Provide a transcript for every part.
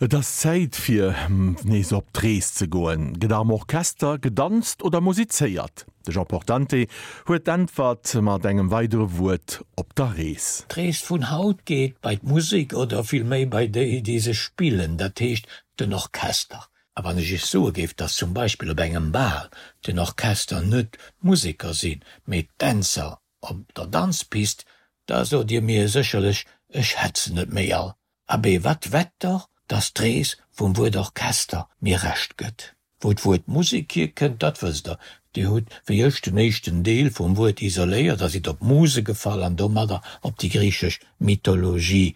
Et ass Zäit fir nees op d'Rees ze goen. Gëtt am Orchester gedanzt oder musizéiert? De Jean Portante huet d'Äntwert mat engem weidere Wuert op der Rees. D'Rees vun haut geet bei d'Musek oder villméi bei déi, déi se spillen, dat heescht den Orchester. A wann ech iech soe géif, dass zum Beispill op engem Bal den Orchester net d'Museker sinn, mee d'Dänzer op der Danzpist, da sot dir mir sécherlech, ech hätt se net méi all. Abee, wat wett der, dass d'Rees vum Wuert Orchester mir Recht gëtt? Wou d'Wuert Musek hierkënnt, dat wësst der. Dir hutt, wéi ech, den éischten Deel vum Wuert isoléiert a sidd op Muse gefall an domadder op déi griichesch Mythologie.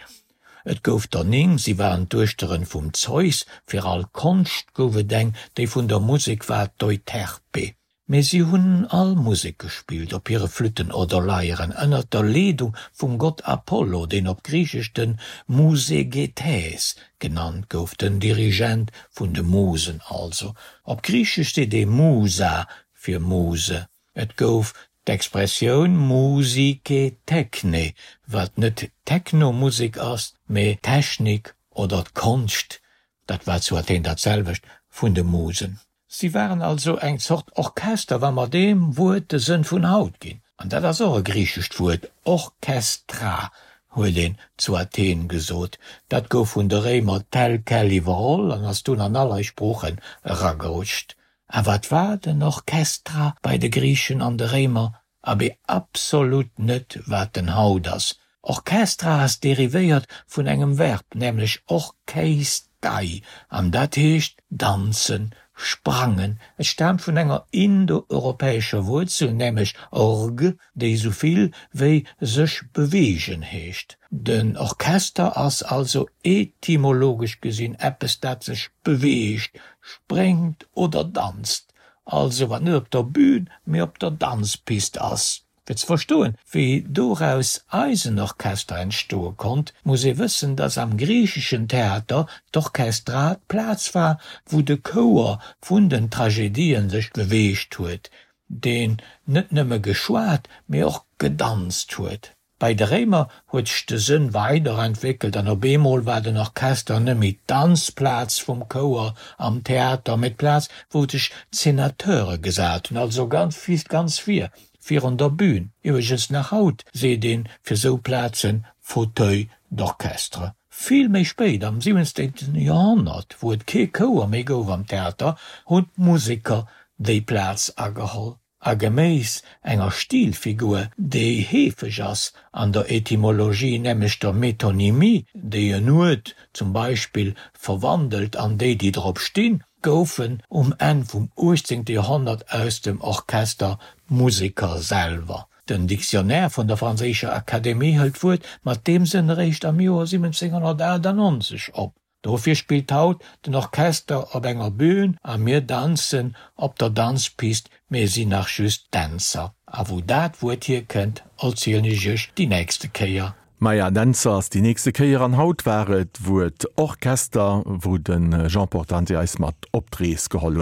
Et gouf der 9, si waren d'Duechteren vum Zeus. Fir all Konscht gouf et eng, déi vun der Musek war d'Euterpe. Mee si hunn all Musek gespillt, op hire Flütten oder Leieren, ënnert der Leedung vum Gott Apollo, deen op Griichesch de Musegetes genannt gouf, den Dirigent vun de Musen also. Op Griichesch seet ee Musa fir Muse. Et gouf d'Expressioun Musike Techne, wat net Techno-Musek ass, mee d'Technik oder d'Konscht, dat war zu Athen dat selwecht, vun de Musen. Si waren also eng Zort Orchester, wa mer deem Wuert de Sënn vun haut ginn. An dat ass och e griichescht Wuert, Orchestra huet een zu Athen gesot. Dat gouf vun de Réimer tel quel iwwerholl an ass dunn an all eis Sproochen eragerutscht. A wat war den Orchestra bei de Griichen an de Réimer? Abee absolut net wat en haut ass. Orchestra ass derivéiert vun engem Verb, nämlech orcheistai, an dat heescht danzen, sprangen. Et staamt vun enger indoeuropäescher Wuerzel, nämlech org, déi esou vill wéi sech beweegen heescht. Den Orchester ass also etymologesch gesinn eppes dat sech beweegt, spréngt oder danzt. Also wat net op der Bühn, mee op der Danzpist ass. Fir ze verstoen, wéi doraus eisen Orchester entstoe konnt, muss ee wëssen, dass am griicheschen Theater d'Orchestra d'Plaz war, wou de Chouer vun den Tragedien sech beweegt huet, deen net nëmme geschwat, mee och gedanzt huet. Bei de Réimer huet sech de Sënn weider entwéckelt an op eemol war den Orchester net méi d'Danzplaz vum Chouer am Theater, mee d'Plaz wou sech d'Senateure gesat hunn, also ganz ganz vir, virun der Bühn. Iwwregens nach haut seet een fir sou Plazen Fauteuil d'orchestre. Vill méi spéit, am 17. Joerhonnert, wou et kee Chouer méi gouf am Theater, hunn d'Museker déi Plaz ageholl. A geméiss enger Stilfigur, déi heefeg ass an der Etymologie, nämlech der Metonymie, déi en Uert zum Beispill verwandelt an déi, déi drop stinn, goufen um Enn vum 18. Joerhonnert aus dem Orchester d'Museker selwer. Den Dictionnaire vun der franséischer Akademie hëlt d'Wuert mat deem Sënn eréischt am Joer 1798 op. Dofir spillt haut den Orchester op enger Bühn a mir danzen op der Danzpist, mir sinn nach just Dänzer. A wou dat Wuert hierkënnt, erzielen ech iech déi nächste Kéier. Maja, Dänzer ass déi nächste Kéier an haut war et d'Wuert Orchester, wou de Jean Portante eis mat op d'Rees geholl huet.